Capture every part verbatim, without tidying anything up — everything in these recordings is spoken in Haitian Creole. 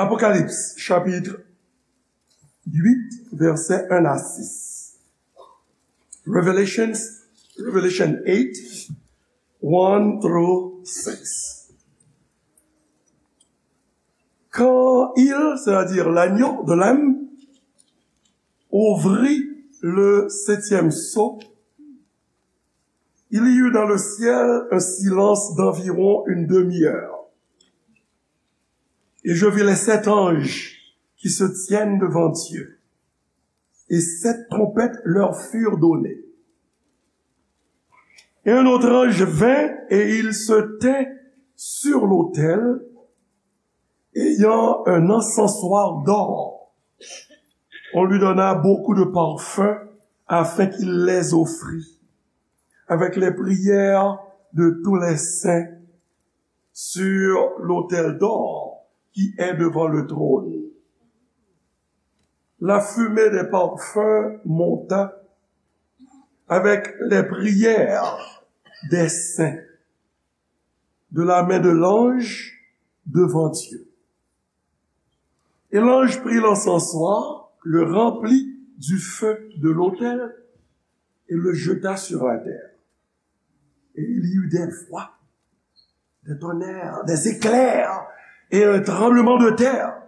Apocalypse, chapitre huit, versets un à six. Revelations, Revelation eight, one through six. Quand il, c'est-à-dire l'agneau, the Lamb, ouvrit le septième sceau, il y eut dans le ciel un silence d'environ une demi-heure. Et je vis les sept anges qui se tiennent devant Dieu, et sept trompettes leur furent données. Et un autre ange vint et il se tint sur l'autel, ayant un encensoir d'or. On lui donna beaucoup de parfums afin qu'il les offrît avec les prières de tous les saints sur l'autel d'or qui est devant le trône. La fumée des parfums monta avec les prières des saints de la main de l'ange devant Dieu. Et l'ange prit l'encensoir, le remplit du feu de l'autel et le jeta sur la terre. Et il y eut des voix, des tonnerres, des éclairs et un tremblement de terre.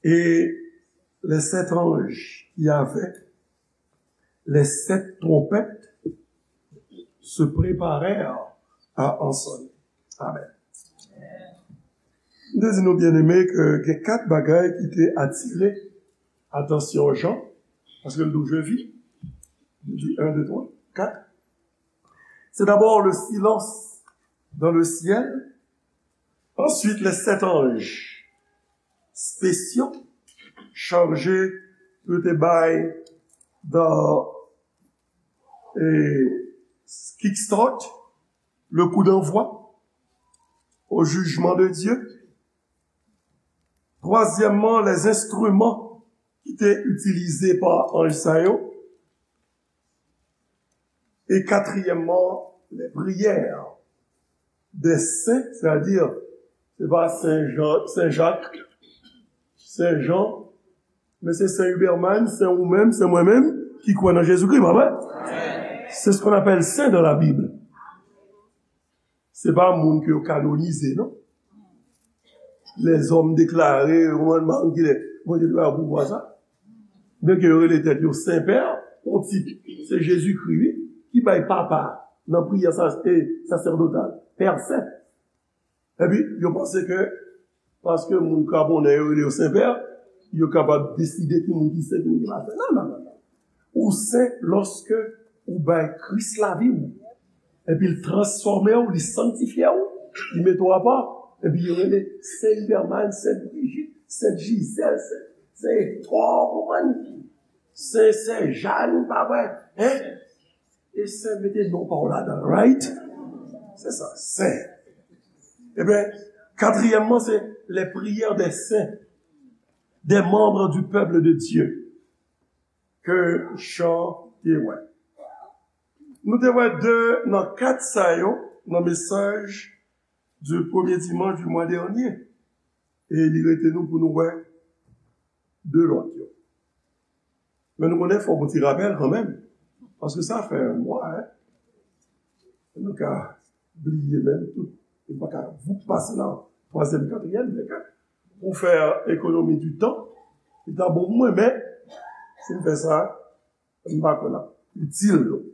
Et les sept anges qui avaient les sept trompettes se préparèrent à en sonner. Amen. M te di nou, byeneme, ke gen kat bagay ki te atire atansyon Jan, paske l di je vis, li di un, deux, trois, quatre. C'est d'abord le silence dans le ciel, ensuite les sept anges spéciaux chargés de te bay dans et kickstart le coup d'envoi au jugement de Dieu. Twazyèmman, les instruments ki te itilize pa anj sa yo. E katriyèmman, les prières des saints, c'est-à-dire, se pa Sen Jan, Sen Jak, Sen Jan, men se Sen Huberman, Sen ou menm, Sen mwen menm, ki kwè nan Jezikri, pa vre? C'est ce qu'on appelle saint dans la Bible. Se pa moun ke yo kanonize, non. Lèzòm deklare, ou konprann, pa konn kilè Bondye te ba yo pouvwa sa. Byenke yo rele tèt yo Sen Pè, yon tit, se Jezikri, wi, ki bay papa nan priyè sa, e, sasèdotal, Pè Sen. Epi, yo panse ke paske moun Gabonè yo rele yo Sen Pè, yo kapab deside ki moun ki sen, ki moun ki pa sen. Non, non, non, non. Ou sen lòske ou bay Kris lavi w. Epi l transfòme w, li sanktifye w, li mete w apa. Epi yo rele Sen Huberman, Sen Brijit, Sen Jizèl, Sen, Sen Etò, ou konprann? Sen, Sen Jàn, pa vre? Hein? E sen mete non pa w ladan, right? Se sa, sen. Ebyen, katriyèmman, se les prières des saints, des membres du peuple de Dieu, ke Jan te wè. Nou te wè de nan kat sa yo nan mesaj du premier dimanche du mois dernier. E li rete nou pou nou wè de lòt yo. Men nou konnen fòk yon ti rapèl kanmenm. Paske sa fè yon mwa, hein. Nou ka bliye menm tout. Nou pa ka voup pase nan twazyèm, katriyèm, men ke pou fè ekonomi di tan, li ta bon pou mwen, men si m fè sa, m pa kwè l ap itil nou.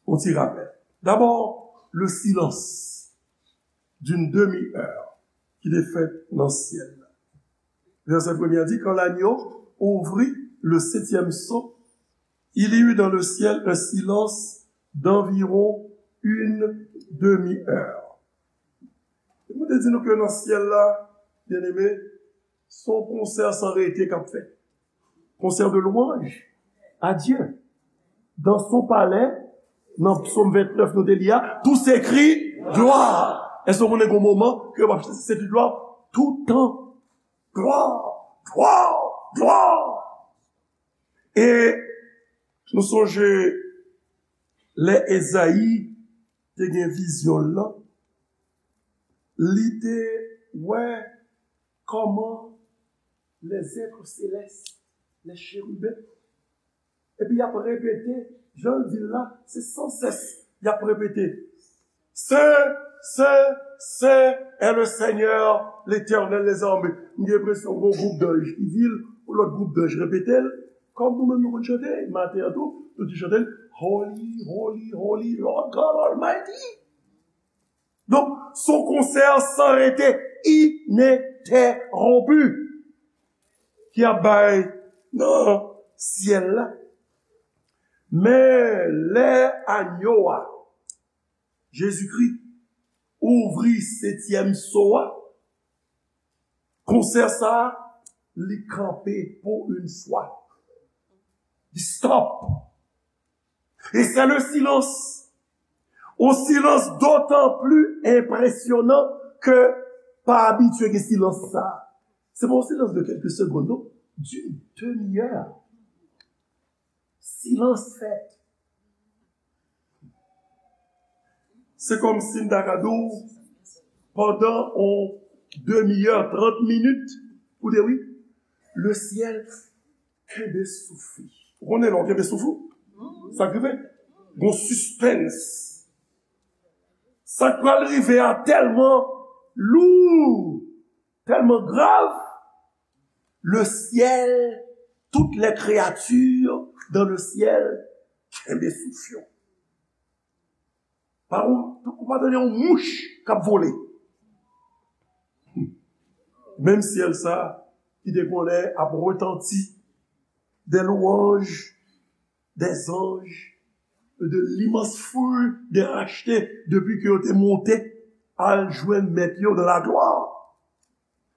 Yon ti rapèl. D'abord, le silence d'une demi-heure ki te fèt nan syèl la. Verset premier a dit, quand l'agneau ouvrit le septième sceau, il y eut dans le ciel un silence d'environ une demi-heure. E mwen te di nou ke nan syèl la, byeneme, se yon konsè san rete k ap fèt. Concert de louange à Dieu. Dans son palais, nan Psaume vingt-neuf nou te li a, tout se kri gloire. Èske w konnen gen yon moman ke w ap se kri gloire? Tout tan. Gloire, gloire, gloire. E nou sonje lè Ezayi te gen vizyon l lan, li te wè comment les êtres célestes, les chérubins, epi y ap repete, jan l di l la, se sansès y ap repete. Saint, Saint, Saint est le Seigneur, l'Éternel des armées. M gen enpresyon gen yon gwoup danj ki di l, yon lòt gwoup danj repete l. Kòm nou menm nou konn chante, maten an tou, nou te chante l, Holy, holy, holy, Lord God Almighty. Donk, se yon konsè san rete, inentèwonpi, ki ap bay nan syèl la. Men lè anyo a, Jezikri, ouvri setyèm so a, konsè sa a, li kanpe pou yon fwa. Li stop. Et c'est le silence. Un silence d'autant plus impressionnant que pa abitye gen silans sa. Se pa yon silans de quelques secondes, non. D'une demi-heure. Silans fèt. Se kòmsi m ta ka di w, pandan yon demi-heure, trant minit, ou te wi, le ciel kenbe souf li. Ou konnen lè w kenbe souf ou? Sa k rive? Gon sispens. Sa k pral rive a tèlman lou, tèlman grav, le ciel, toutes les créatures dans le ciel kenbe souf yo. Pa ou, ou pa tande yon mouch k ap vole. Menm syèl sa ki te konnen ap retanti des louanges des anges, de l'immense foule des rachetés, depi ke yo te monte al jwenn mèt yo dans la gloire.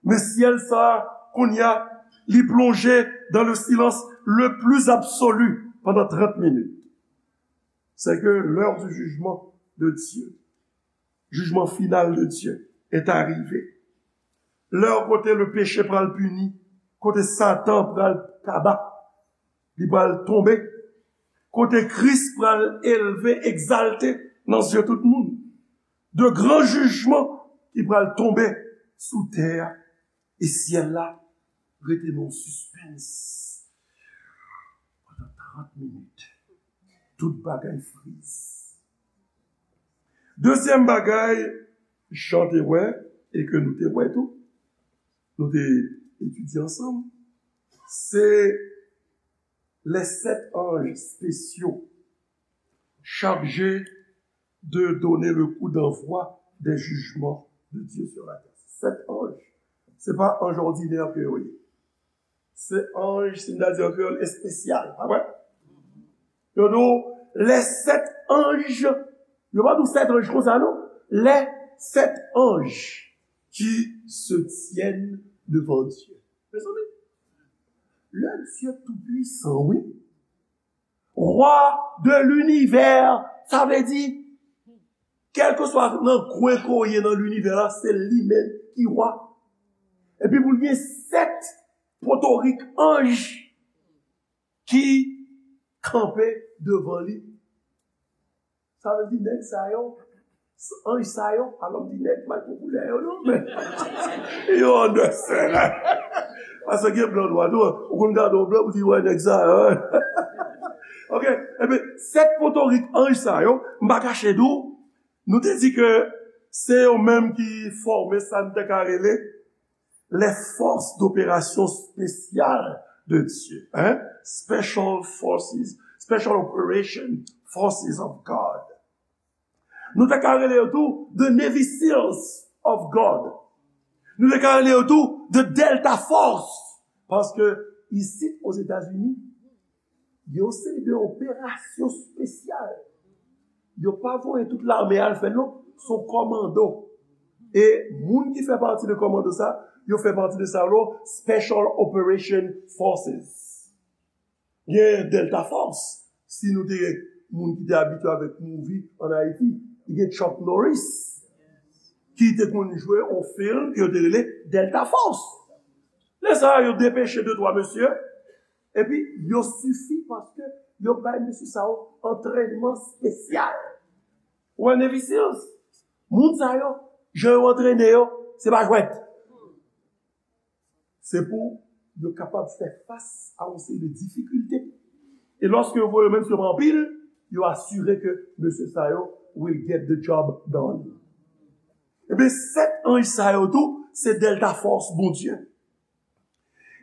Men syèl sa, kounye a, li plonje dans le silence le plus absolu pendant trente minutes. C'est que l'heure du jugement de Dieu, jugement final de Dieu, est arrivé. Lè kote le peche pral pini, kote Satan pral kaba, li pral tonbe, kote Kris pral elve, egzalte nan zye tout moun. De gran jijman ki pral tonbe sou tè a. E syèl la rete nan sispens pandan trant minit. Tout bagay friz. Dezyèm bagay, jan te wè, e ke nou te wè tou, nou te etidye ansanm, se les sept anges spéciaux chargés de donner le coup d'envoi des jugements de Dieu sur la terre. Sèt anj. Se pa anj òdinè ke yo ye. Se anj, si n ta di an kreyòl, espesyal, pa vre? Yo di w, les sept anges, yo pa di w sèt anj konsa, non. Les sept anges qui se tiennent devant Dieu. Mezanmi, le Dieu tout-puissant, wi. Roi de l'univers, sa vle di, kèlkeswa nan kwen ke w ye nan linivè la, se li menm ki wa. Epi pou l gen sèt potorik anj ki kanpe devan li. Sa vle di nèg sa yo, anj sa yo, alò m di nèg, m pa t pran koulè yo non, men yo anndan sèl la. Paske gen blan nwa tou, ou konn gade yon blan pou di wè nèg sa yo. Ok, ebyen, sèt potorik anj sa yo, m pa kache di w, nou te di ke se yo menm ki fòme sa n te ka rele les forces d'opération spéciales de Dieu, hein? Special forces, special operation forces of God. Nou te ka rele yo tou the Navy Seals of God. Nou te ka rele yo tou the Delta Force. Paske isit Ozetazini, yon seri de operasyon espesyal. Yo pa voye tout lame al fè l non, se yon kòmando. E moun ki fè pati de kòmando sa, yo fè pati de sa yo, Special Operation Forces. Gen Delta Force, si nou te gen moun ki te abitye avèk movie an Ayiti, gen Chuck Norris, ki te konn jwe yon fim ke yo te rele Delta Force. Lè sa a, yo depeche de twa mesye, epi yo sifi paske yo bay mesye sa yo antrènman espesyal. Ou wè Navy Seals? Moun sa yo, jan yo antrene yo, se pa jwèt. Se pou yo kapab fè fas a yon seri de difikilte. E lòske yo voye yo menm sou anpil, yo asire ke mesye sa yo will get the job done. Ebyen, sèt anj sa yo tou, se Delta Force Bondye.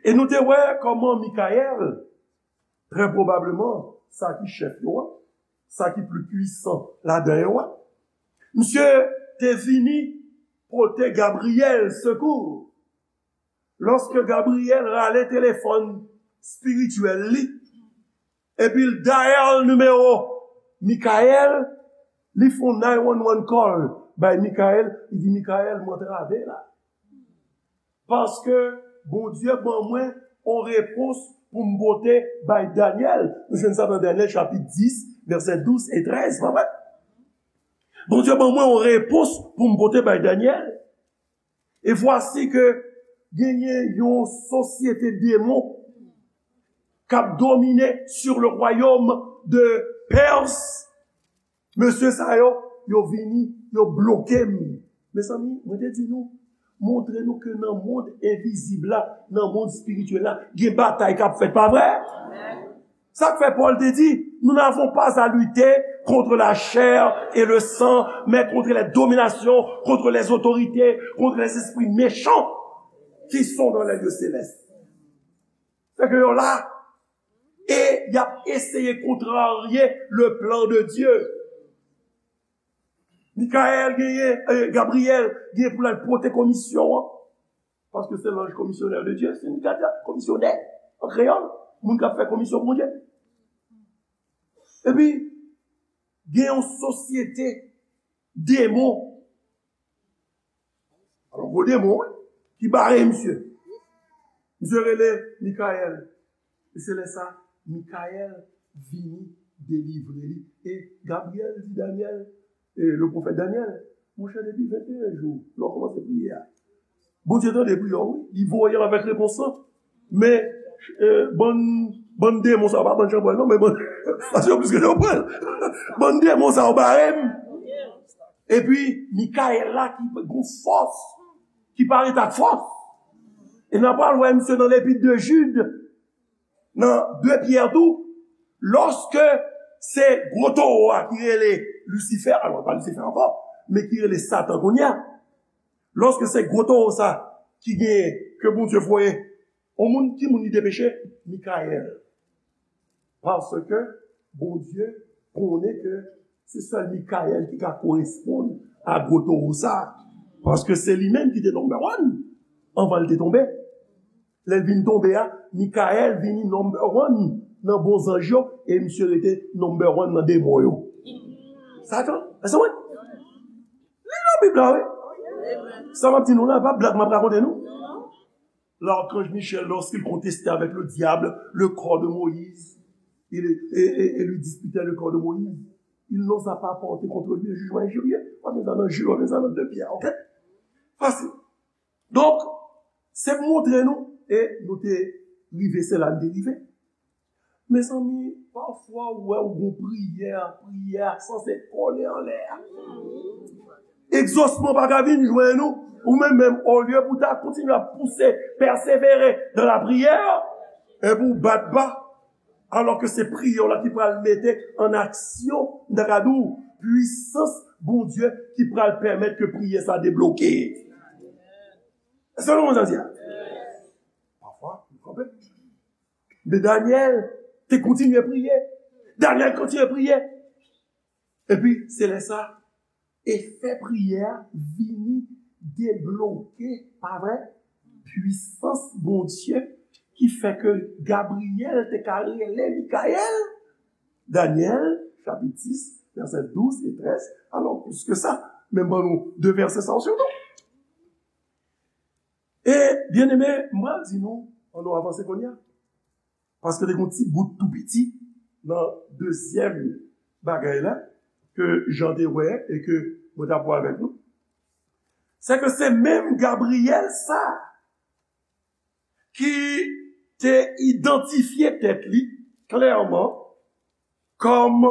E nou te wè kòman Mikayèl, trè pwobableman, sa ki chèf yo a, sa ki pli pwisan ladan yo a, misye te vini pote Gabriyèl sekou. Lòske Gabriyèl rale telefòn espirityèl li, epi l dial nimewo Mikayèl, li fè yon nine one one call bay Mikayèl, li di, Mikayèl, m antrave la. Paske Bondye ban mwen yon repons pou m pote bay Danyèl. Nou jwenn sa nan Danyèl chapit dis, vèsè douz e trèz, pa vre? Bondye ban mwen yon repons pou m pote bay Danyèl. E vwasi ke genyen yon sosyete demon k ap domine sur le royaume de Perse. Mesye sa yo, yo vini, yo bloke m. Mezanmi, mwen te di nou, montre nou ke nan mond envizib la, nan mond espirityèl la, gen batay k ap fèt, pa vre? Sa k fè Pòl te di, nous n'avons pas à lutter contre la chair et le sang, mais contre les dominations, contre les autorités, contre les esprits méchants qui sont dans les lieux célestes. Se ke yo la, e y ap eseye kontrarye le plan de Dieu. Mikayèl genyen, eh, Gabriyèl genyen pou l al pote komisyon an. Paske se l'ange commissionnaire de Dieu, se Mikayèl, komisyonè, an kreyòl, moun k ap fè komisyon Bondye. Epi, gen yon sosyete demon. Alò, gwo demon, wi, ki bare misye. Misye rele Mikayèl. E se lè sa, Mikayèl vini delivre li. E Gabriyèl di Danyèl, e le pwofèt Danyèl, monchè, depi venteyen jou, lè w kòmanse priye a, Bondye tande priyè w, wi. Li voye w avèk repons lan. Men, eh, bann, bann demon sa yo, pa bann chanpwèl non, men bann, paske yo plis ke chanpwèl. Bann demon sa yo bare m. Epi, Mikayèl la ki gon fòs, ki parèt ak fòs. E n a pral wè misye nan lepit de Jid, nan de Pyè tou, lòske se gwo towo a ki rele Lisifè, alò, pa Lisifè ankò, men ki rele Satan kounye a. Lòske se gwo towo sa ki genyen ke Bondye voye, yon moun, ki moun li te peche? Mikayèl. Paske Bondye konnen ke se sèl Mikayèl ki ka koresponn a gwo towo sa. Paske se li menm ki te number one anvan l te tonbe. Lè l vin tonbe a, Mikayèl vini number one nan bon zanj yo, e misye rete number one nan demon yo. Satan, èske w konprann? Li nan Bib la, wi. Sa m ap di nou la, pa blag m ap rakonte nou. L'archange Michel, lorsqu'il contestait avec le diable le corps de Moïse, il, et, et, et lui disputait le corps de Moïse, il n'osa pas porter contre lui un jugement injurieux. W ap jwenn sa nan Jid, w ap jwenn sa nan de Pyè, ok? Fasil. Donk, se pou montre nou, e nou te rive, se la n te rive. Mezanmi, pafwa ou wè ou gon priyè, priyè a sanse kole anlè a. Egzosman pa ka vin jwenn ou, ou menm menm, olye pou ta kontinye ap pouse, pèsevere dans la prière, epi ou bat ba, alò ke se priyè w la ki pral mete an aksyon, m ta ka di w, pwisans Bondye ki pral pèmèt ke priyè sa debloke. Èske nou konprann sa m di a? Pafwa, nou kanpe. Men Danyèl te kontinye priye. Danyèl kontinye priye. Epi, se lè sa, efè priyè a vini debloke, pa vre? Pwisans Bondye ki fè ke Gabriyèl te ka rele Mikayèl. Danyèl, chapit dis, vèsè douz e trèz. Alò, plis ke sa, men ban nou de vèsè sa yo sitou. E, byeneme, m pral di nou, ann nou avanse kounye a. Paske te gen yon ti bout tou piti nan dezyèm bagay la, ke Jan te wè e ke mwen t ap wè avèk nou. Se ke se menm Gabriyèl sa ki te idantifye tèt li klèman kòm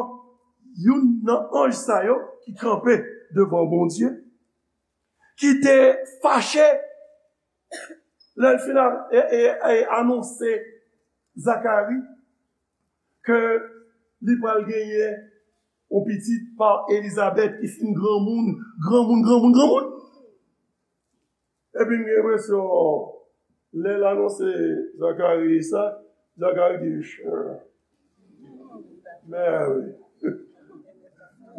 youn nan anj sa yo ki kanpe devan Bondye, ki te fache Lè l fin a- e- e- e- anonse Zakari ke li pral genyen yon pitit pa Elizabèt ki fin granmoun, granmoun, granmoun, granmoun. Epi m gen enpresyon, lè l anonse Zakari sa, Zakari di, "Sure. Mary.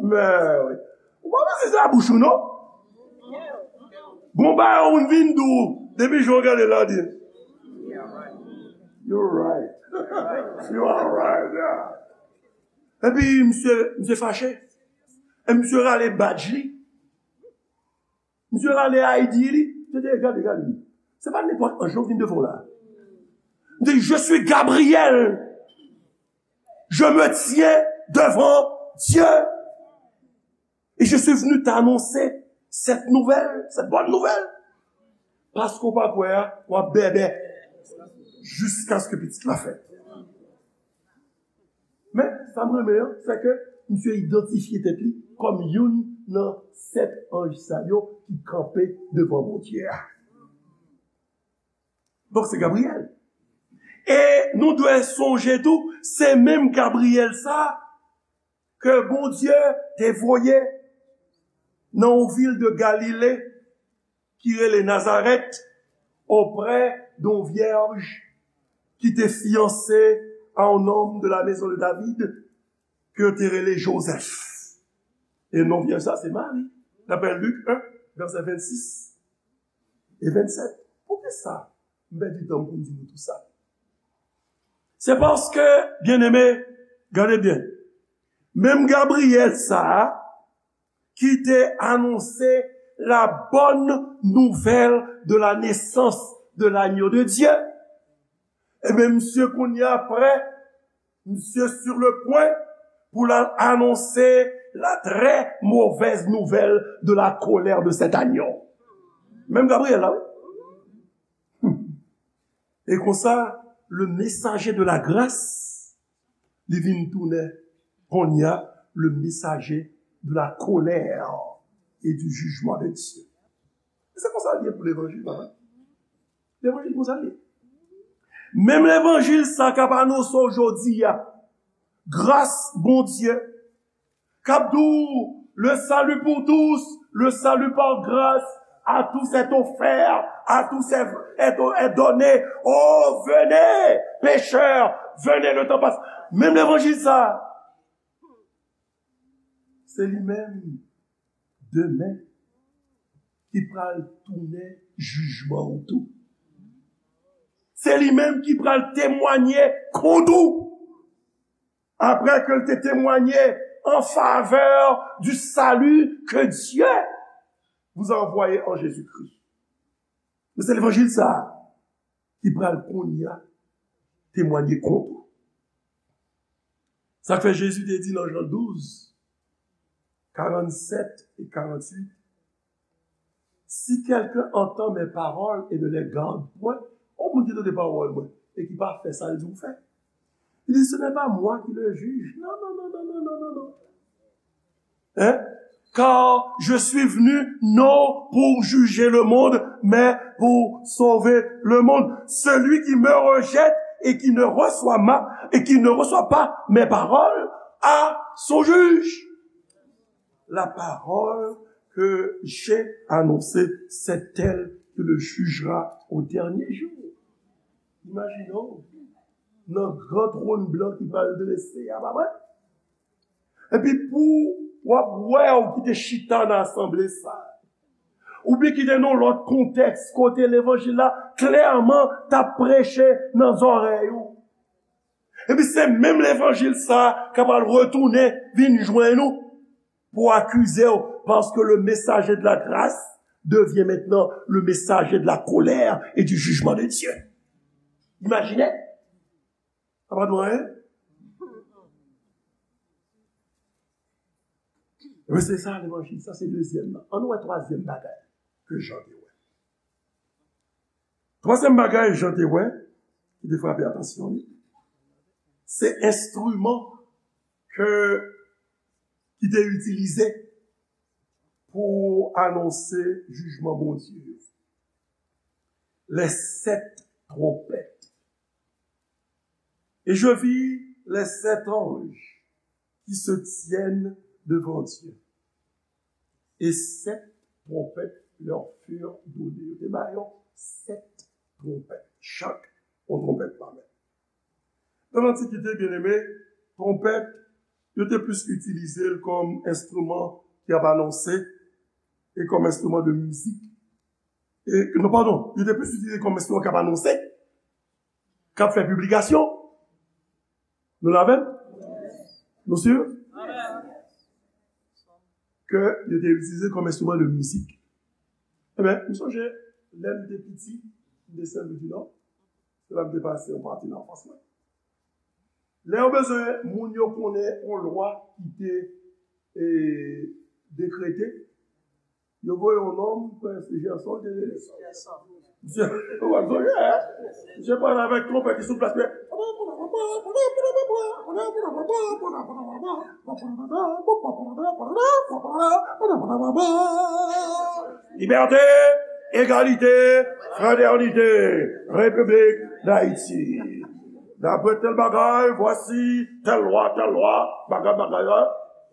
Mary." Ou pa panse se a bouch ou, non? Gon bagay ou vin di w, depi jan w gade la, di, "You're right. You are right, yeah." Epi misye, misye fache. E misye rale badj li. Misye rale I D li. Misye di, "Gade, gade. Se pa nenpòt anj non ki vin devan w la." Li di, "Je suis Gabriel. Je me tiens devant Dieu. Et je suis venu t'annoncer cette nouvelle, cette bonne nouvelle. Paske w pa kwè a, w ap bèbè jiskaske pitit la fèt." Men, sa m renmen an, se ke misye idantifye tèt li kòm youn nan sèt anj sa yo ki kanpe devan Bondye a. Donk, se Gabriyèl. E nou dwe sonje tou, se menm Gabriyèl sa a ke Bondye te voye nan yon vil de Galile ki rele Nazarèt, auprès d'une vierge qui était fiancée à un homme de la maison de David, ke yo te rele Jozèf. E non vyèj sa, se Mari. Daprè Lik en, vèsè vennsis e vennsèt. Poukisa m pèdi tan m pou m di nou tou sa? Se paske, byeneme, gade byen, menm Gabriyèl sa a, ki te anonse la bonne nouvelle de la naissance de l'agneau de Dieu. Ebyen, misye kounye a prè, misye sur le point pou l al anonse la très mauvaise nouvelle de la colère de cet agneau. Menm Gabriyèl la, wi. E konsa, le messager de la grâce, li vin tounen, kounye a, le messager de la colère et du jugement de Dieu. E se konsa l ye pou levanjil, papa. Levanjil konsa l ye. Menm levanjil sa k ap anonse w jodi a, gras Bondye, k ap di w, le salut pour tous, le salut par grâce, à tous est offert, à tous est, est, est donné. Oh, venez, pécheurs, venez, le temps passe. Menm levanjil sa, se li menm demen ki pral tounen jijman ou tou. Se li menm ki pral temwanye kont ou. Après que l te témoigné en faveur du salut que Dieu vous a envoyé en Jésus-Christ. Men se levanjil sa a ki pral kounye a temwanye kont ou. Sa k fè Jezi te di nan Jan douz, karannset e karannwit, si quelqu'un entend mes paroles et ne les garde point, yon moun ki tande pawòl mwen e ki pa fè sa l di w fè. Il dit, ce n'est pas moi qui le juge. Non, non, non, non, non, non, non, non. Hein? Car je suis venu non pour juger le monde, mais pour sauver le monde. Celui qui me rejette et qui ne reçoit ma, et qui ne reçoit pas mes paroles a son juge. La parole que j'ai annoncée, c'est elle qui le jugera au dernier jour. Imajine w, nan gran twòn blan ki pral drese a, pa vre? Epi pou w ap wè w ki te chita nan asanble sa, oubyen ki te nan yon lòt kontèks kote levanjil la klèman t ap preche nan zòrèy ou. Epi se menm levanjil sa a k ap al retounen vin jwenn ou pou akize w, parce que le messager de la grâce devient maintenant le messager de la colère et du jugement de Dieu. Imajine! Sa pa dwe anyen? Ebyen, se sa levanjil. Sa se dezyèm nan. Ann nou wè twazyèm bagay ke Jan te wè. Twazyèm bagay Jan te wè, ki te frape atansyon li, se enstriman ke, ki te itilize pou anonse jijman Bondye yo. les sept trompettes. Et je vis les sept anges qui se tiennent devant Dieu. Et sept trompettes leur furent données. Yo te ba yo sèt twonpèt. Chak yon twonpèt pa men. Nan Lantikite, byeneme, twonpèt, yo te plis itilize l kòm enstriman ki ap anonse e kòm enstriman de mizik. E, non, padon, yo te plis itilize kòm enstriman k ap anonse, k ap fè piblikasyon. Nou la avè m? Nou si? Ke yo te itilize kòm enstriman de mizik. Ebyen, m sonje, lè m te piti, m te Sen Lwi di Nò, se la m te pase yon pati nan anfans mwen. Lè yo bezwen moun yo konnen yon lwa ki te e, dekrete, yo voye yon nonm, kwè se Jèson te rele. Misye, w ap sonje, misye pale avèk twonpèt ki sou plas, men Liberté, égalité, fraternité, République d'Haïti. D'après tel bagay, voici tel lwa, tel lwa, bagay, bagay la.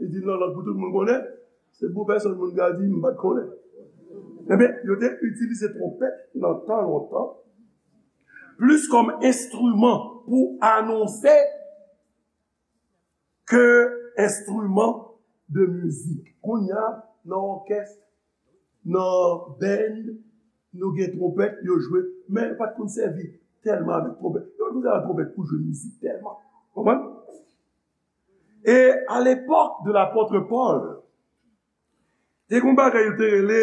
Li di nan lang pou tout moun konnen. Se pou pèsonn moun ka di, "M pa t konnen." Ebyen, yo te itilize twonpèt nan tan lontan, plis kòm enstriman pou anonse ke enstriman de mizik. Kounye a, nan òkès, nan band, nou gen twonpèt, yo jwe, men yo pa t konn sèvi tèlman avèk twonpèt. Yo pa t konn sèvi twonpèt pou jwe mizik tèlman. Konprann? E a lepòk de lapòt Pòl, te gen yon bagay yo te rele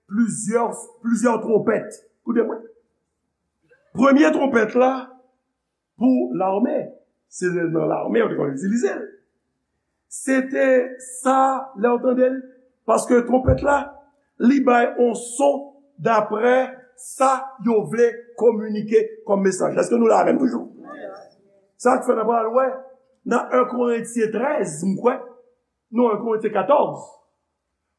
plizyè, plizyè twonpèt. Koute mwen. Premye twonpèt la, pou lame. Se nan lame yo te konn itilize l. Se te sa, lè w tande l, paske twonpèt la, li bay on son daprè sa yo vle kominike kòm mesaj. Èske nou la avè m toujou? Sa k fè n ap pral wè nan en Korentyen trèz, m kwè, non, en Korentyen katòz,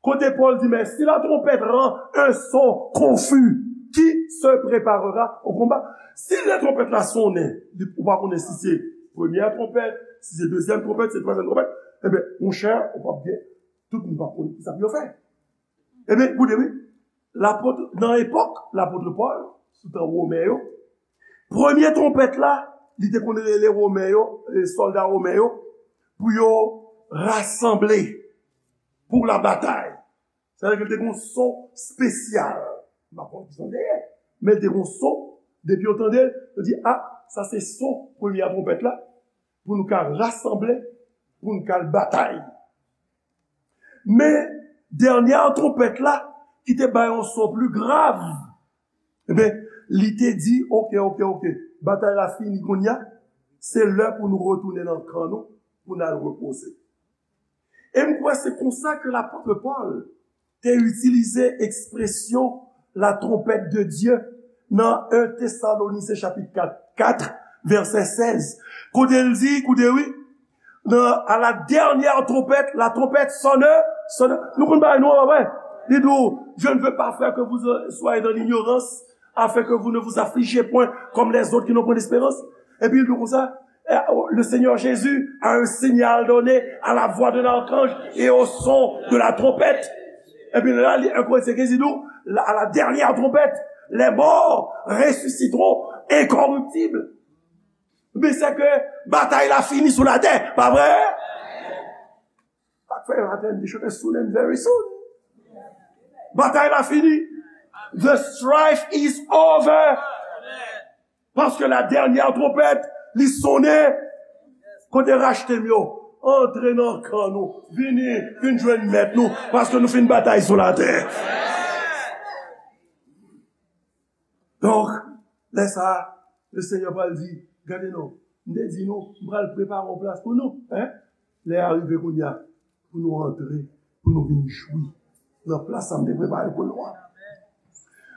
kote Pòl di, mais si la trompette rend un son confus, qui se préparera au combat? Si lè twonpèt la sonnen, li, ou pa konnen si se premyè twonpèt, si se dezyèm twonpèt, si se twazyèm twonpèt, ebyen, monchè, ou p ap gen, tout moun p ap konn kisa pou yo fè. Ebyen, koute, wi, lapot, nan epòk lapot Pòl, sou tan Women yo, premye twonpèt la, li te konn rele Women yo, e, sòlda Women yo, pou yo rasanble pou labatay. Sa vle di ke l te gen yon son espesyal. M pa konn ki son l te ye, men l te gen yon son. Depi yo tande l, yo di, "A, sa se son premye twonpèt la, pou nou ka rasanble, pou nou ka al batay." Men, dènyè twonpèt la, ki te bay yon son pli grav, ebyen, li te di, "Oke, oke, oke, batay la fini kounye a, se lè pou nou retounen nan kan nou, pou n al repoze." E m kwè se konsa ke lapot Pòl te itilize ekspresyon la trompette de Dieu nan en Tesalonisyen chapit kat, kat, vèsè sèz. Kote l di, koute wi, nan, à la dernière trompette, la trompette sonne, sonne. Nou konn bagay nou an, pa vre? Li di w, je ne veux pas, frères, que vous soyez dans l'ignorance, afin que vous ne vous affligiez point comme les autres qui n'ont point d'espérance. Epi li di w konsa, eh, le Seigneur Jésus a un signal donné à la voix de l'archange et au son de la trompette. Epi la, li, en Korentyen kenz, li di w, la, à la dernière trompette, les morts ressusciteront incorruptibles. Men se ke batay la fini sou latè, pa vre? Sa k fè yo atè di chante soon and very soon. Batay la fini. The strife is over. Paske la dènyè twonpèt, li sonnen. Kote rachte m yo? Antre nan kan nou. Vini, vin jwenn mèt nou. Paske nou fin batay sou latè. Donk, lè sa a, le Senyè pral di, "Gade non, m te di nou, m pral prepare yon plas pou nou, en? Lè a rive kounye a, pou nou antre, pou nou vin jwi nan plas sa m te prepare pou nou an."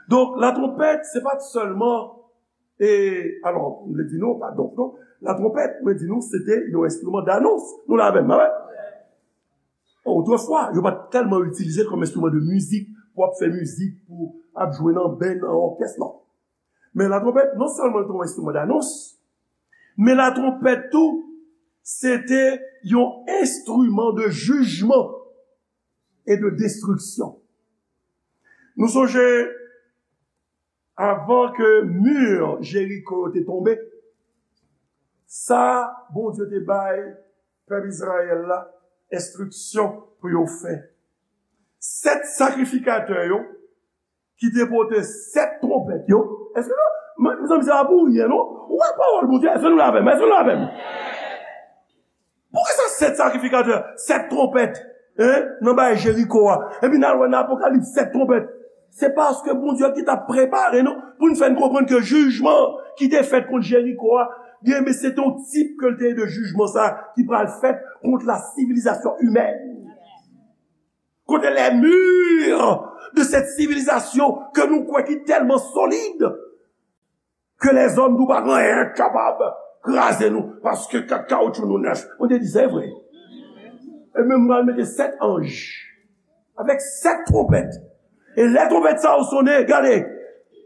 Donk, la trompèt, se pa t sèlman, e, alò, m vle di nou, pa donk, non, la trompèt, mwen di nou, se te yon enstriman danons. Nou la avè m, pa vre? Otrefwa, yo pa t tèlman itilize l kòm enstriman de mizik, pou ap fè mizik, pou ap jwe nan band, nan òkès, non. Men latwonpèt, non sèlman l te yon enstriman danons, men latwonpèt tou, se te yon enstriman de jijman e de destriksyon. Nou sonje, avan ke mi Jeriko yo te tonbe, sa Bondye te bay pèp Izrayèl la enstriksyon pou yo fè. Sèt sakrifikatè yo ki te pote sèt twonpèt yo. Èske nou, mezanmi, se pa pou ryen, non? Ou wè pawòl Bondye, èske nou la avè m? Èske nou la avè m? Poukisa sèt sakrifikatè, sèt twonpèt, en, nan bay Jeriko a? Epi n al wè nan Apokalips, sèt twonpèt. Se paske Bondye ki t ap prepare nou pou n fè n konprann ke jijman ki te fèt kont Jeriko a, byen, men se te yon tip ke l te ye de jijman sa ki pral fèt kont la sivilizasyon imèn. Kote les murs de cette civilisation ke nou kwè ki tèlman solid ke lèzòm nou pa gen anyen k kapab kraze nou, paske kat kawotchou nou nèf. Mwen te di, se vre. E menm mwen al mete sèt anj avèk sèt twonpèt. E lè twonpèt sa yo sonnen, gade,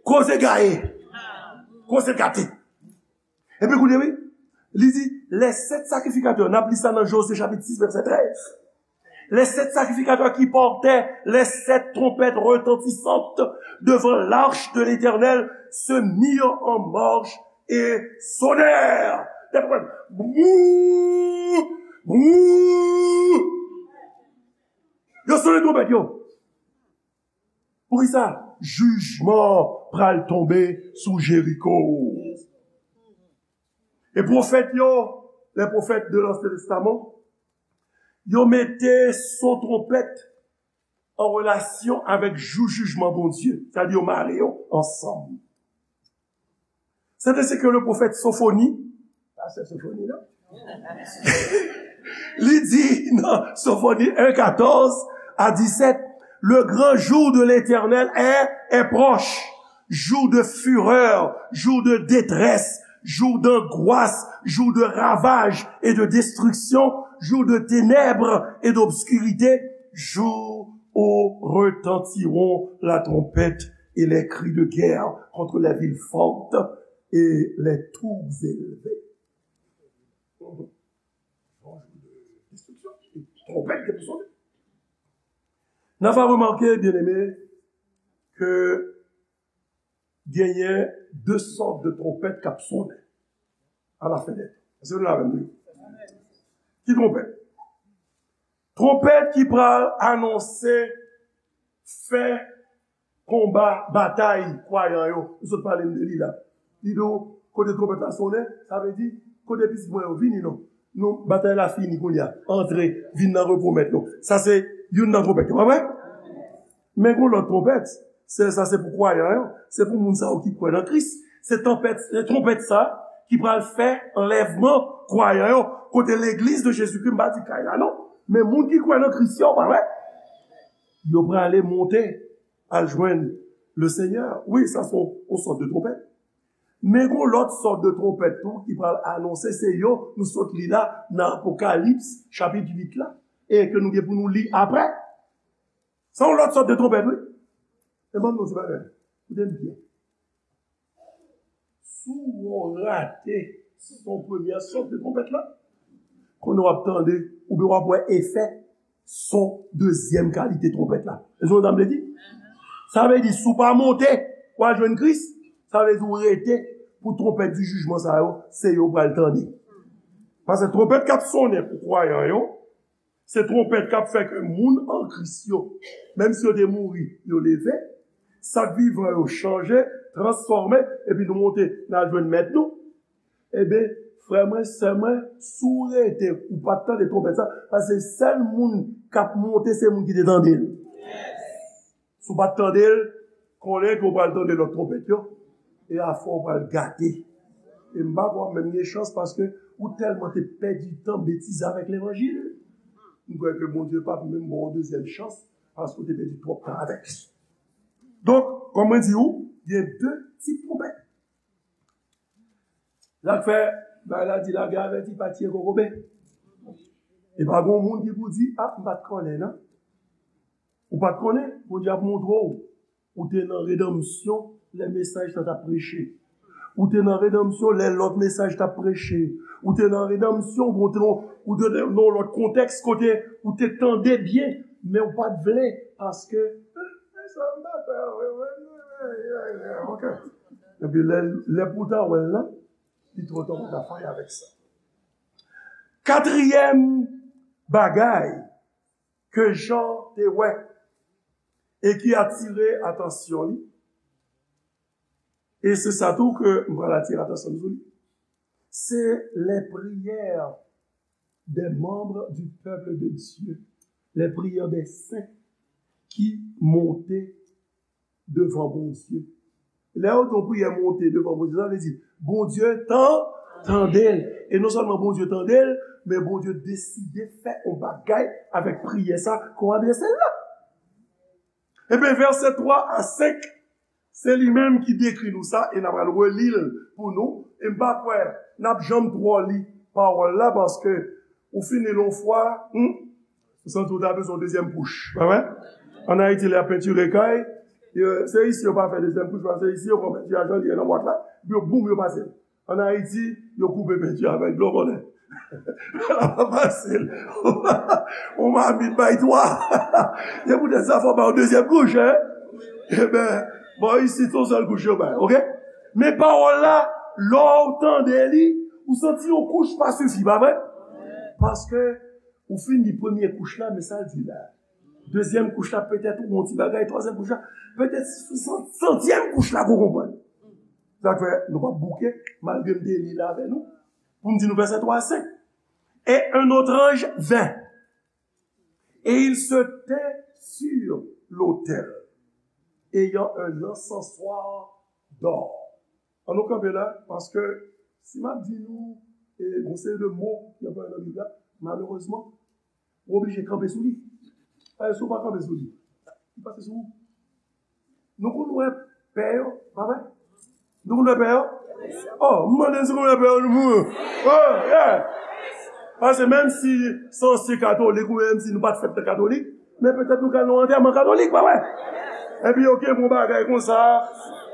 koze gaye, koze gate. Epi koute, wi, li di, les sept sacrificateurs, n ap li sa nan Jozye chapit sis, vèsè trèz. Les sept sacrificateurs qui portaient les sept trompettes retentissantes devant l'arche de l'Éternel se mirent en marche et sonnèrent. Dèyè twonpèt, bou, bou. Yo sonnen twonpèt yo. Poukisa? Jijman pral tonbe sou Jeriko. E pwofèt yo, les prophètes de l'Ancien Testament, yo mete son twonpèt an relasyon avèk jou jijman Bondye. Sa di yo mare yo ansanm. C'est ainsi que le prophète Sophonie, pastè Sophonie, non? Li di nan Sophonie un, quatorze à dix-sept, le grand jour de l'Éternel est, est proche, jour de fureur, jour de détresse, jour d'angoisse, jour de ravage et de destruction, jour de ténèbres et d'obscurité, jour où retentiront la trompette et les cris de guerre contre les villes fortes et les tours élevées. Twonpèt ki pou sonnen. N a remake, byeneme, ke genyen de sòt de twonpèt k ap sonnen alafen dè tan. Èske nou la avè m? Ki twonpèt? Twonpèt ki pral anonse fen konba, batay kwayan yo. Nou sot pale m de li la. Li di w, kote twonpèt la sonnen, sa vle di, kote pitit mwen yo, vini non. Nou, batay la fini kounye a. Antre, vin nan repo mèt nou. Sa se youn nan twonpèt yo, pa vre? Men gon lòt twonpèt, se, sa se pou kwayan yo, se pou moun sa yo ki kwè nan Kris. Se twonpèt, se twonpèt sa ki pral fè anlèvman kwayan yo, kote legliz de Jezikri, m pa di kay la non, men moun ki kwè nan Kris yo, pa vre? Yo prale monte al jwenn le Senyè. Wi, sa se yon, yon sòt de twonpèt. Men gon lòt sòt de twonpèt tou ki pral anonse, se yo nou sot li la nan Apokalips chapit uit la, e ke nou gen pou nou li apre. Se yon lòt sòt de twonpèt, wi. E ban m di w ti bagay. Koute m byen. Si w rate son premyè sòt de twonpèt la, kounye a w ap tande, oubyen w ap wè efè son dezyèm kalite twonpèt la. Èske w konprann sa m vle di? Sa vle di, si w pa monte, w al jwenn Kris, sa vle di w rete pou twonpèt di jijman sa yo, se yo w pral tande. Paske twonpèt k ap sonnen pou kwayan yo, se twonpèt k ap fè ke moun an Kris yo, menm si yo te mouri, yo leve, sa k vivan yo chanje, transfòme, epi nou monte, n al jwenn Mèt nou. Ebyen, frè mwen, sè mwen, si w rete, ou pa t tande twonpèt sa, paske sèl moun k ap monte, se moun ki te tande l. Si w pa t tande l, konnen ke w pral tande lòt twonpèt yo, e afè w pral gate. E m pa kwè w ap menm gen chans paske ou tèlman te pèdi tan betize avèk levanjil. M kwè ke Bondye p ap menm ba w yon dezyèm chans paske w te pèdi twòp tan avèk li. Donk, kòm mwen di w, gen de tip twonpèt. Sa k fè, bagay la di lagè avèti pa tiye kokobe. E pa gon moun ki pou di, a, m pa t konnen, non. Ou pa t konnen, Bondye ap montre w, ou te nan redanmsyon lè mesaj sa t ap preche. Ou te nan redanmsyon lè lòt mesaj t ap preche. Ou te nan redanmsyon, bon, ou te, ou te nan yon lòt kontèks kote ou te tande byen, men ou pa t vle, paske, "Eh, sa m pa fè, wi, wi, wi, wi, wi, wi, ok." Epi lè, lè pou w ta wè l la, li twò ta, ou pa ta fè anyen avèk sa. Katriyèm bagay ke Jan te wè e ki atire atansyon li, e se sa tou ke m pral atire atansyon nou sou li, se les prières des membres du peuple de Dieu, les prières des saints ki monte devan Bondye. Lè yo di yon priyè monte devan Bondye, sa vle di Bondye tan, tande l. E non sèlman Bondye tande l, men Bondye deside fè yon bagay avèk priyè sa ke w adrese l la. Ebyen, vèsè twa a senk, se li menm ki dekri nou sa, e n a pral reli l pou nou. E m pa kwè n ap janm twò li pawòl la, paske ou fin li l yon fwa, hmm, ou santi w ta bezwen yon dezyèm kouch, pa vre? Ann Ayiti, lè y ap pentire kay, yo, se isi yo pa fè dezyèm kouch, paske se isi yo pran penti a jan li ye nan bwat la, epi yo boum, yo pase l. Ann Ayiti, yo koupe penti a avèk dlo konnen. L ap fasil. Yon mamit bay twa. Se poutèt sa fò w bay yon dezyèm kouch, en? Ebyen, bò isit, se yon sèl kouch yo bay, ok? Men pawòl la, lè w tande li, ou santi yon kouch pa sifi, pa vre? Paske ou fin li premye kouch la, men sa l di la. Dezyèm kouch la, petèt ou yon ti bagay, twazyèm kouch la, petèt se sou san-, santyèm kouch la ke w konprann. Sa k fè nou p ap bouke, malgre m te li l avè nou, pou m di nou vèsè twa a senk. Et un autre ange vint, et il se tint sur l'autel, ayant un encensoir d'or. Ann nou kanpe la, paske si m ap di nou, e, yon seri de mo ki anplwaye nan Bib la, malerezman, ou oblije kanpe sou li. Paske si w pa kanpe sou li, li pase sou ou. Nou konn wè pè yo, pa vre? Nou konn wè pè yo? Oh, m mande si nou konn wè pè yo, nou pou. Oh, yeah! Paske menm si se yon se katolik, ou menm si nou pa t fèt nan katolik, men petèt nou ka nan yon antèman katolik, pa vre? Epi yo kenbe yon bagay konsa,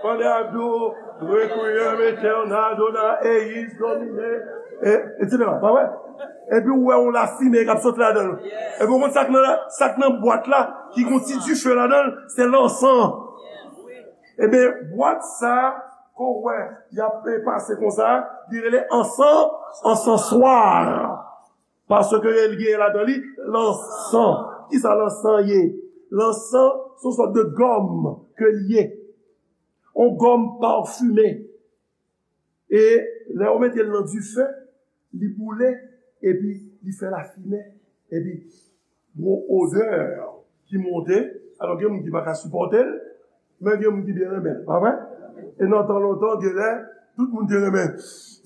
pandan y ap di w, Requiem aeternam dona eis Domine, e, et cetera, pa vre? Epi ou wè yon lafimen k ap sot ladan l. Epi ou konn sa k nan, sa k nan bwat la, ki gon ti dife ladan l, se lansan. Ebyen, bwat sa, ke w wè, y ap pase konsa, li rele ansan, ansanswa. Paske l genyen ladan li lansan. Kisa lansan ye? Lansan, se yon sòt de gòm ke l ye. Yon gòm pafime. E lè yo mete l nan dife, li boule, epi li fè lafimen, epi gon odè ki monte. Alò, gen moun ki pa ka sipòte l, men gen moun ki byen renmen l, pa vre? E nan tan lontan, genlè, tout moun te renmen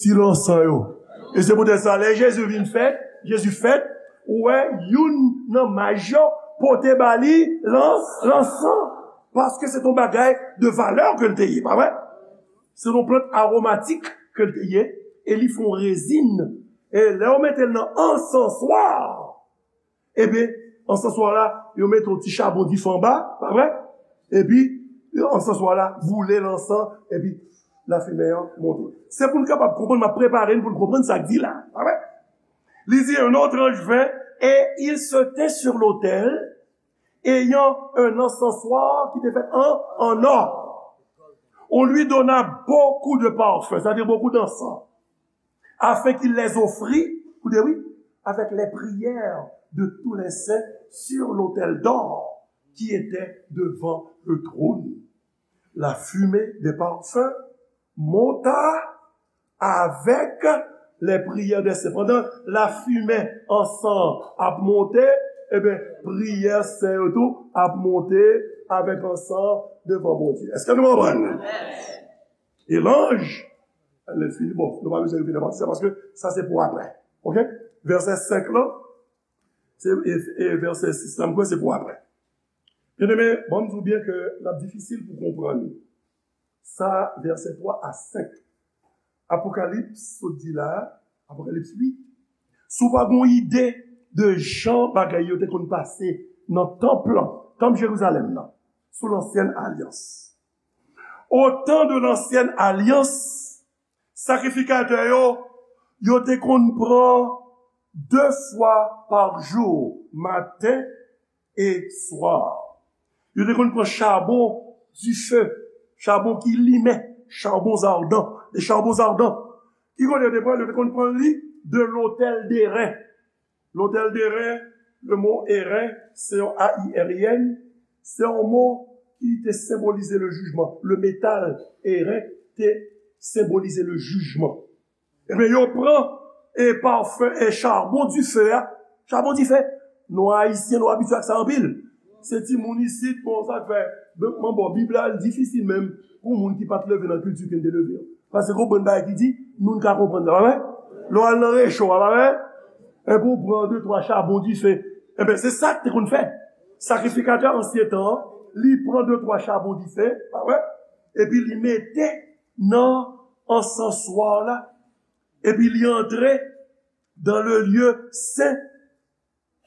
ti lansan yo. E se poutèt sa, lè Jezi vin fèt, Jezi fèt, ou wè, youn nan maj yo pote ba li lan-, lansan. Paske se t on bagay de valè ke l te ye, pa vre? Se yon plant awomatik ke l te ye, e li fè yon rezin. E lè yo mete l nan ansanswa, ebyen, ansanswa la, yo mete yon ti chabon dife anba, pa vre? Epi, ansanswa la boule lansan, epi lafimen an monte. Se pou n kapab konprann, m ap prepare n pou n konprann sa k di la, pa vre? Li di, un autre ange vint, et il se tint sur l'autel, ayant un encensoir ki te fèt an, an or. On lui donna beaucoup de parfums, c'est-à-dire beaucoup d'encens, afin qu'il les offrît, koute wi, avec les prières de tous les saints sur l'autel d'or qui était devant le trône. La fumée des parfums monta avec les prières des saints. Pandan lafimen ansan ap monte, ebyen, priyè sen yo tou ap monte avèk ansan devan Bondye. Èske nou konprann? E lanj, lè fini, bon, nou pa bezwen rive nan pati sa, paske sa se pou apre. Ok? Vèsè senk lan, se, e, e vèsè sis lan, m kwè se pou apre. Byeneme, bon, m di w byen ke l ap difisil pou konprann sa, vèsè twa a senk. Apokalips, sot di la, Apokalips uit, si w pa gen yon ide de jan bagay yo te konn pase nan tanp lan, tanp Jerizalèm nan, sou lansyèn alyans. Au temps de l'ancienne alliance, sakrifikatè yo, yo te konn pran de fwa pa jou, maten e swa. Yo te konn pran chabon dife, chabon ki limen, charbons ardents, des charbons ardents. Ki kote yo te pran? Yo te konn pran li de l'autel d'airain. L'autel d'airain, le mot airain, se yon A I R I N, se yon mo ki te senbolize le jijman. Le metal airain te senbolize le jijman. Ebyen, yo pran e pafen e charbon dife a. Charbon dife. Nou Ayisyen, nou abitye ak sa anpil. Se timoun isit, bon, sa k fè, bon, bon, Bib la, li difisil menm pou moun ki pa t leve nan kilti ke n te leve an. Paske konprann bagay ki di, nou n ka konprann sa, pa vre? Lè w al nan recho a, pa vre? Epi w pran de, twa chabon dife. Ebyen, se sa k te konn fèt. Sakrifikatè ansyen tan an, li pran de, twa chabon dife, pa vre? Epi li mete nan ansanswa la. Epi li antre dans le lieu saint,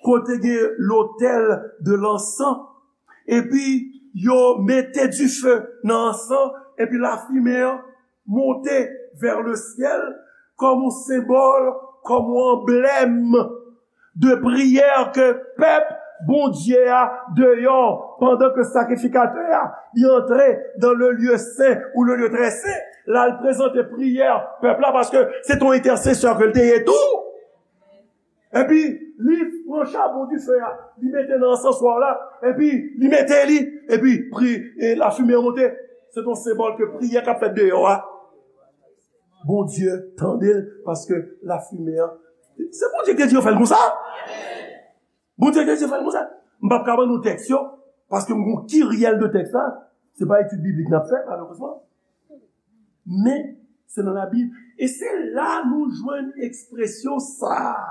kote gen l'autel de l'encens. Epi yo mete dife nan ansan, epi lafimen an monte vers le ciel kòm yon senbòl, kòm yon anblèm de priyè ke pèp Bondye a deyò, pandan ke sakrifikatè a, li antre dans le lieu saint ou le lieu très saint, l al prezante priyè pèp la, paske se t on entèsesè ke l te ye tou. Epi, li pran chabon dife a, li mete nan ansanswa la, epi li mete li, epi pri, e lafimen an monte. Se t on senbòl ke priyè k ap fèt deyò a, Bondye tande l, paske lafimen an, se Bondye ki te di yo fè l konsa. Bondye te di fè l konsa. M p ap ka ban nou tèks yo, paske m gon kiryèl de tèks la. Se pa etid biblik n ap fè, malerezman. Men, se nan Labib. E se la nou jwenn ekspresyon sa a.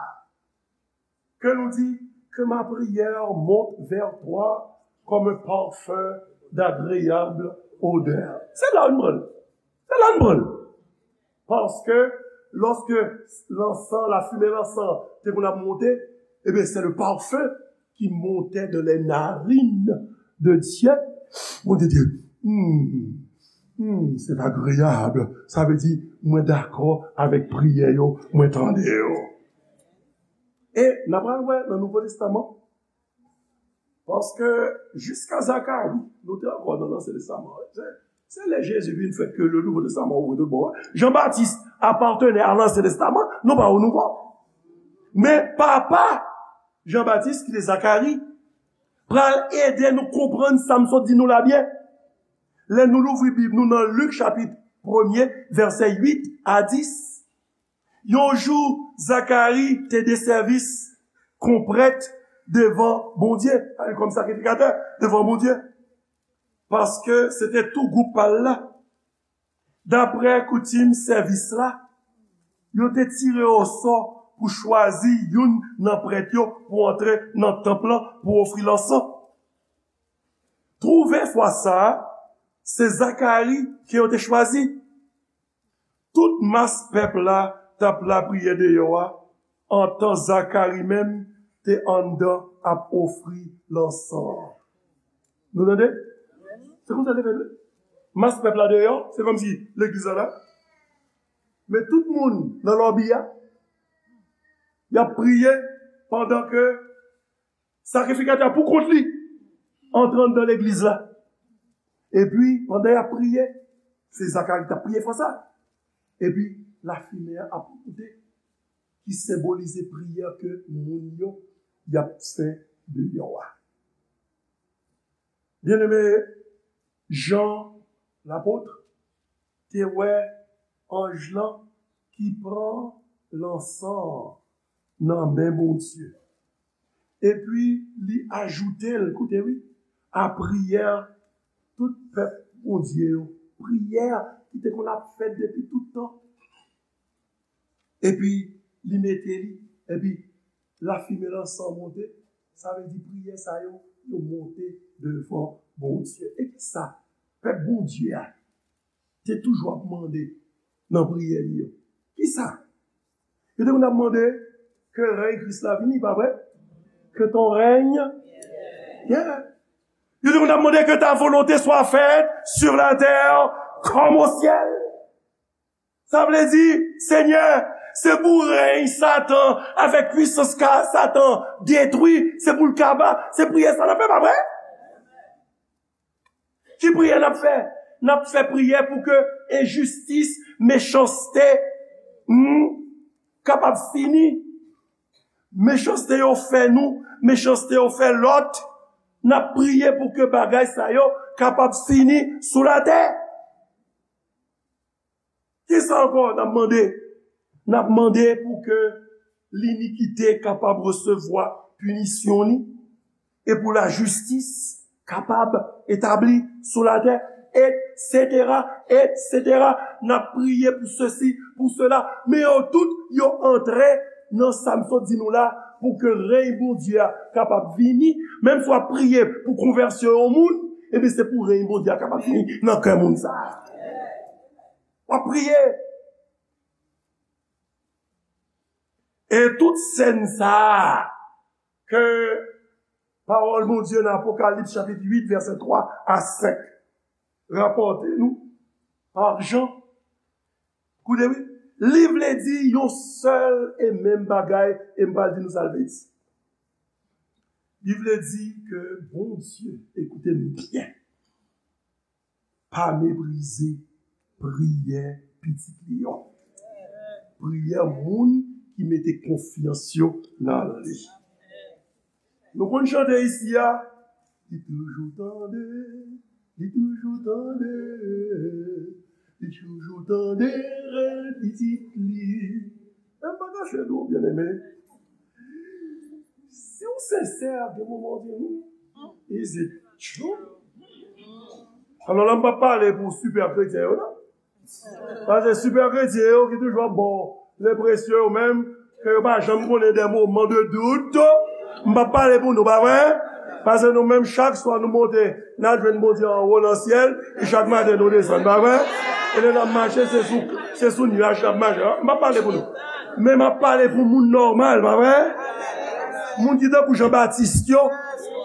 Que nous dit que ma prière monte vers toi comme un parfum d'agréable odeur. Se la nou pran l. Se la nou pran l. Paske lòske lansan, lafimen lansan te konn ap monte, ebyen, c'est le parfum qui montait de les narines de Dieu. Bondye di, hmm, hmm, c'est agréable. Sa vle di, mwen dakò avèk priyè yo, mwen tande yo. E n a pral wè nan Nouvo Testaman, paske jiska Zakari, nou te ankò nan Lansyen Testaman. Se, se lè Jezi vin fèt ke le Nouvo Testaman ouvri tout bò. Jan Batis apartenait à l'Ancien Testament, nou pa o Nouvo. Men papa Jan Batis, ki te Zakari, pral ede nou konprann sa m sot di nou la byen. Lè nou louvri Bib nou nan Lik chapit premye, vèsè uit a dis, yon jou, Zakari te de sèvis kon prèt devan Bondye, kòm sakrifikatè devan Bondye, paske se te tou gwoup pa l la. Daprè koutim sèvis la, yo te tire osò pou chwazi youn nan prèt yo pou antre nan tanp lan pou ofri lansan. Twouve fwa sa a, se Zakari ke yo te chwazi. Tout mas pèp la t ap lapriyè deyò a, antan Zakari menm te anndan ap ofri lansan an. Nou tande? Se konsa l te fèt, wi. Mas pèp la deyò, se kòmsi legliz la la. Men tout moun nan lòbi a, y ap priye pandan ke sakrifikatè a pou kont li antre anndan legliz la. Epi, pandan y ap priye, se Zakari k t ap priye fwa sa. Epi, lafimen an ap monte, ki senbolize priyè ke moun yo y ap fè deyò a. Byeneme, Jan lapot te wè anj lan ki pran lansan an nan men Bondye. Epi li ajoute l, koute wi, a priyè tout pèp Bondye yo. Priyè ki te konn ap fèt depi tout tan. Epi li mete li, epi lafimen lansan monte, sa vle di priyè sa yo, yo monte devan Bondye. E kisa pèp Bondye a te toujou ap mande nan priyè li yo? Kisa? Yo te konn ap mande ke rèy Kris la vini, pa vre? Que ton règne vienne. Yo te konn ap mande que ta volonté soit faite sur la terre comme au ciel. Sa vle di, Senyè, se pou rèy Satan avèk pwisans ka Satan detwi, se pou l kaba, se priyè sa n ap fè, pa vre? Ki priyè n ap fè? N ap fè priyè pou ke enjistis, mechanste, hmm, kapab fini. Mechanste yo fè nou, mechanste yo fè lòt. N ap priye pou ke bagay sa yo kapab fini sou latè. Kisa ankò n ap mande? N ap mande pou ke linikite kapab resevwa pinisyon li e pou lajistis kapab etabli sou latè, etsetera, etsetera. N ap priye pou sesi, pou sela, men yo tout, yo antre nan sa m sot di nou la, pou ke rèy Bondye a kapab vini. Menm si w ap priye pou konvèsyon yon moun, ebyen, se pou rèy Bondye a kapab vini nan kè moun sa a. W ap priye. E tout sèn sa a ke pawòl Bondye nan Apokalips chapit uit, vèsè twa a senk rapòte nou pa Jan. Koute wi, li vle di yon sèl e menm bagay, e m pral di nou sa l vle di. Li vle di ke Bondye, ekoute m byen, pa meprize priyè pitit li yo. Priyè moun ki mete konfyans yo nan li. Nou konn chante isi a, li toujou tande, li toujou tande, li toujou tande rèl pitit li. Men m pa kache nou, byeneme. Si w sensè, gen moman w di, hmm, is it true? Alò la, m p ap pale pou sipè kretyen yo, non. Paske sipè kretyen yo ki toujou ap ba w lenpresyon yo menm, ke yo pa janm konnen de moman de dout. M p ap pale pou nou, pa vre? Paske nou menm, chak swa nou monte, n al jwenn Bondye anwo nan syèl, e chak maten nou desann, pa vre? E lè n ap mache, se sou, se sou nyaj n ap mache. M p ap pale pou nou. Men m ap pale pou moun nòmal, pa vre? Moun ki tankou Jan Batis yo,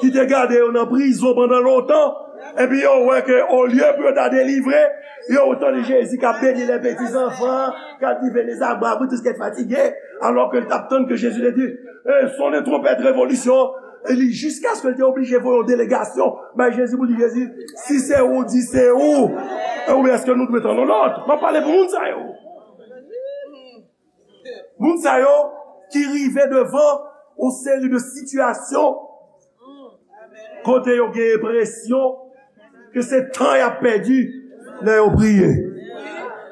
ki te gade yo nan prizon pandan lontan, epi yo wè ke olye pou yo ta delivre, yo tande Jezi k ap beni les petits enfants, k ap di venez à moi, vous tous qui êtes fatigués, alò ke l t ap tann ke Jezi te di, eh, sonne trompette, révolution, e li, jiskaske l te oblije voye yon delegasyon bay Jezi pou di, Jezi, si se ou, di se ou. E oubyen èske nou dwe tann yon lòt? M ap pale pou moun sa yo. Moun sa yo ki rive devan yon seri de sitiyasyon kote yo gen enpresyon ke se tan y ap pèdi lè yo priye.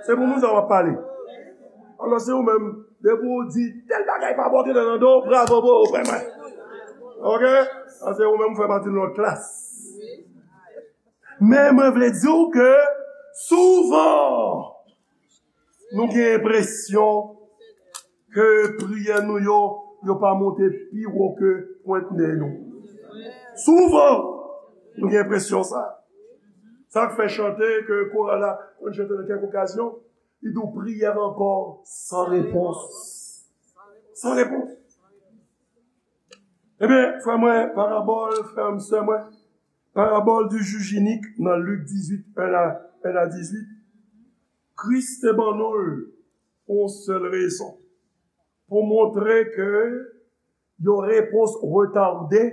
Se pou moun sa yo m ap pale. Alò, se ou menm, depi ou di tèl bagay pa bon, tèl nan do, bravo pou ou, frè mwen. Oke? Sa se ou menm, ou fè pati de lòt klas. Men mwen vle di w ke souvan, nou gen enpresyon ke priyè nou yo, yo pa monte pi wo ke pwent nen nou. Souvan, nou gen enpresyon sa. Sa k fè chante ke koral la konn chante nan kèk okazyon, li di w, prière encore sans réponse. Sans réponse. Ebyen, frè mwen, parabòl, frè m, sè mwen, parabòl du juge unique nan Lik dizuit, en a, en a dizuit, Kris te ban nou l pou yon sèl rezon, pou montre ke yon repons retade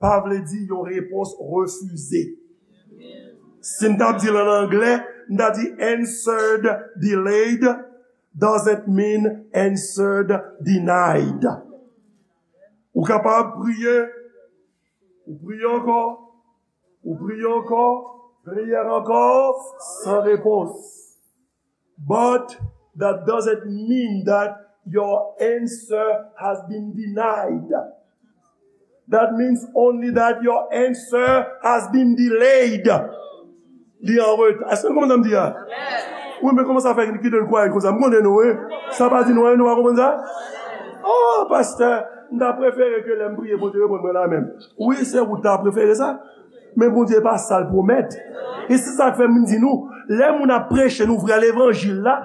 pa vle di yon repons refize. Si m t ap di l an anglè, m ta di answered delayed doesn't mean answered denied. Ou kapab priye, ou priye ankò, ou priye ankò, priyè ankò, san repons. But that doesn't mean that your answer has been denied. That means only that your answer has been delayed. Li an reta. Èske nou konprann sa m di a? Wi, men kòman sa fè ki, ki donn kwayè konsa? M konnen nou, wi. Sa pa di nou anyen, nou pa konprann sa? Oh, pastè, m ta prefere ke lè m priye, Bondye reponn mwen la menm. Wi, se ou ta prefere sa. Men Bondye pa sa l pwomèt. E se sa k fè m di nou, lè moun ap preche nou vrè levanjil la,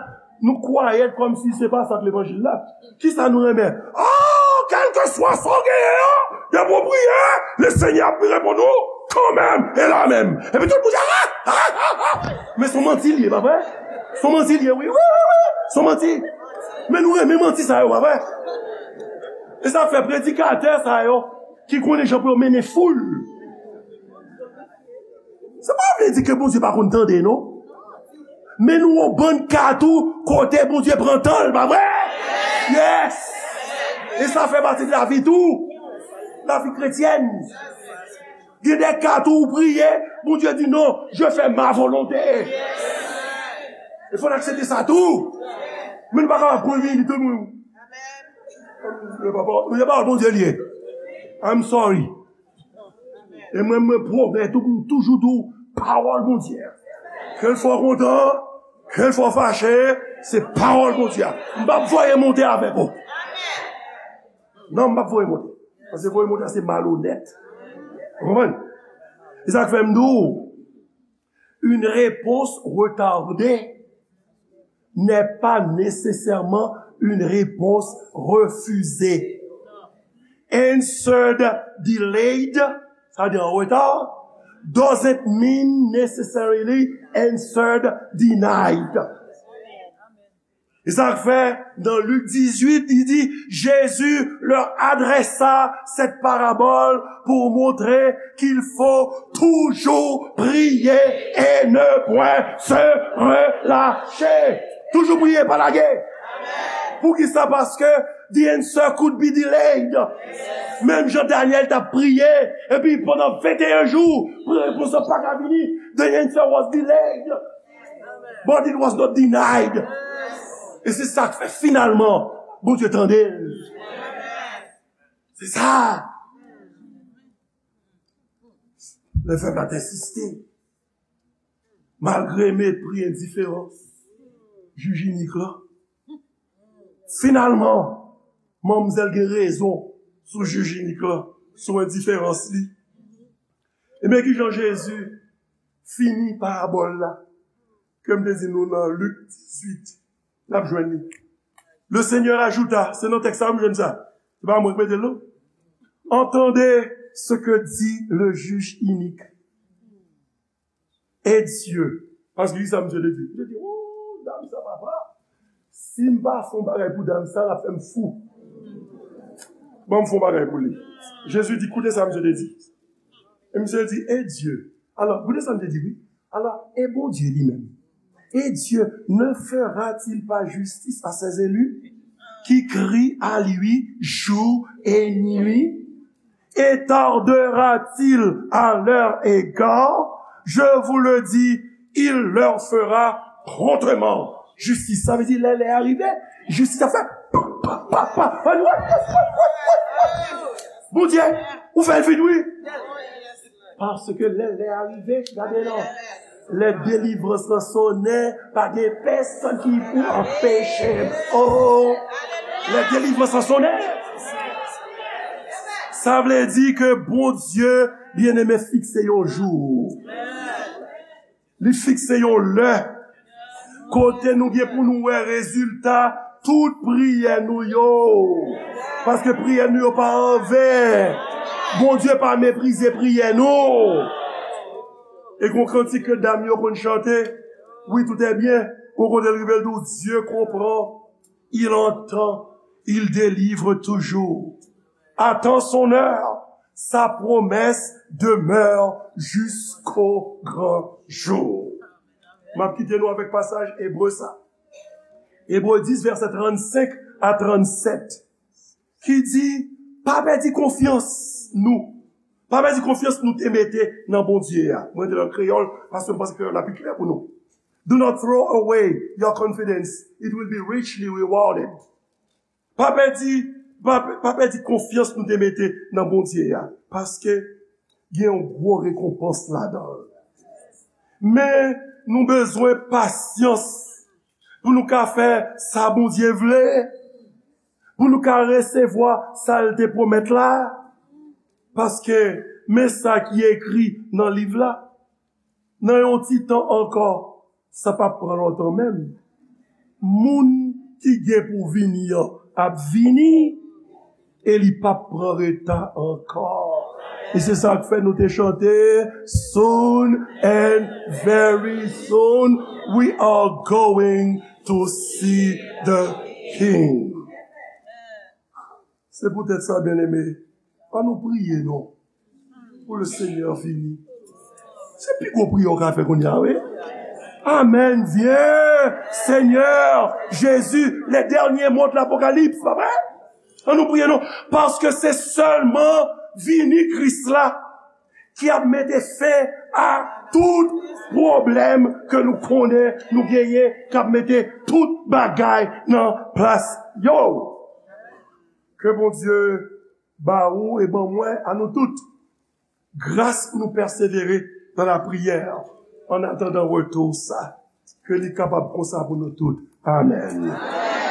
nou kwayèt kòmsi se pa sa k levanjil la. Kisa nou renmen? Oh, kèlkeswa sa w genyen an, depi w priye, Lesenyè ap reponn ou kanmenm e la menm. Epi tout moun di, ah, ah, ah, ah, Men se yon manti l ye, pa vre? Se yon manti l ye, wi, wi, wi, wi. Se yon manti. Men nou renmen manti sa yo, pa vre? E sa fè predikatè sa yo ki konnen jan pou yo mennen foul. Sa pa vle di ke Bondye pa konn tande, non. Men nou yon bann ka tou kote Bondye pran tan l, pa vre? Yes! E sa fè pati de lavi tou. Lavi kretyèn. Gen de ka tou ou priye, Bondye di non, je fais ma volonté. E fò n aksepte sa tou. Men nou pa kapab pran vini tout moun. Le papa, le papa Bondye li ye. I'm sorry. E mwen, mwen pwomèt ou pou m toujou di w pawòl Bondye. Ke l fè w kontan, ke l fè w fache, se pawòl Bondye. M p ap voye monte avèk ou. Non, m p ap voye monte. Paske voye monte a se malonèt. Ou konprann? E sa k fè m di w, une réponse retardée n'est pas nécessairement une réponse refusée. Answered delayed, sa vle di an reta, doesn't mean necessarily answered denied. E sa k fè, dans Luc dix-huit, il dit, Jésus leur adressa cette parabole pour montrer qu'il faut toujours prier et ne point se relâcher. Toujou priye, pa lage. Poukisa? Paske the answer could be delayed. Menm jan Daniel t ap priye, epi pandan venteyen jou, pou repons lan pa ka vini, the answer was delayed. But it was not denied. E se sa k fè finalman, Bondye tande l. Se sa. Lè pèp la te ensiste, malgre mepri, endiferans jij inik lan, finalman, manmzèl gen rezon sou jij inik lan, sou endiferans li. Ebyen, ki jan Jezi fini parabòl la ke m te di nou nan Lik dizuit? N ap jwenn li. Le Seigneur ajouta, se nan tèks sa m jwenn sa. Se pa mwen ki mete l, non. Entendez ce que dit le juge inique. Et Dieu. Paske ki sa misye te di? Misye di, oh, dam sa, papa. Si m pa fè yon bagay pou dam sa, l ap fè m fou. Ban m fè yon bagay pou li. Jezi di, koute sa misye te di. E misye di, et Dieu. Alò, koute sa misye di, wi. Alò, e Bondye li menm? Et Dieu ne fera-t-il pas justice à ses élus qui crient à lui jour et nuit? Et tardera-t-il à leur égard? Je vous le dis, il leur fera promptement justice. Sa vle di, lè lè a rive, jistis ap fè pa, pa, pa, pa. Bondye, ou fè l vit, wi. Paske lè lè a rive, gade non. Lè delivrans lan sonnen, pa gen pèsonn ki pou anpeche m. Oh, lè delivrans lan sonnen. Sa vle di ke Bondye, byeneme, fikse yon jou. Li fikse yon lè kote nou gen pou nou wè rezilta tout priyè nou yo. Paske priyè nou yo pa anven. Bondye pa meprize priyè nou. E gon kantik ke dam yo konn chante. Wi, tout est bien. Gon kote l rive l di w, Dieu comprend, il entend, il délivre toujours. Attends son heure, sa promesse demeure jusqu'au grand jour. M ap kite nou avèk pasaj Ebre sa. Ebre dis, vèsè trannsenk a trannsèt, ki di, pa pèdi konfyans nou. Pa pèdi konfyans nou te mete nan Bondye a. Mwen te nan kreyòl, paske m panse kreyòl la pi klè pou nou. Do not throw away your confidence. It will be richly rewarded. Pa pèdi, pa, pa pèdi konfyans nou te mete nan Bondye a, paske gen yon gwo rekonpans ladan l. Men nou bezwen pasyans pou nou ka fè sa Bondye vle, pou nou ka resevwa sa l te pwomèt la, paske men sa ki ekri nan liv la. Nan yon ti tan ankò, sa p ap pran lontan menm. Moun ki gen pou vini an ap vini, e li p ap pran reta ankò. E se sa k fè nou te chante, "Soon and very soon we are going to see the King." Se poutèt sa, byeneme, ann nou priye non, pou le Senyè vini. Se pi gwo priyè w ka fè kounye a, wi. Amèn. Vyen, Senyè Jezi, les derniers mots de l'Apocalypse, pa vre? Ann nou priye non, paske se sèlman vini Kris la ki ap mete fen a tout pwoblèm ke nou konnen nou genyen, k ap mete tout bagay nan plas yo. Ke Bondye ba ou e ban mwen, a nou tout, gras pou nou pèsevere nan lapriyè, an atandan retou sa. Ke li kapab konsa pou nou tout. Amèn.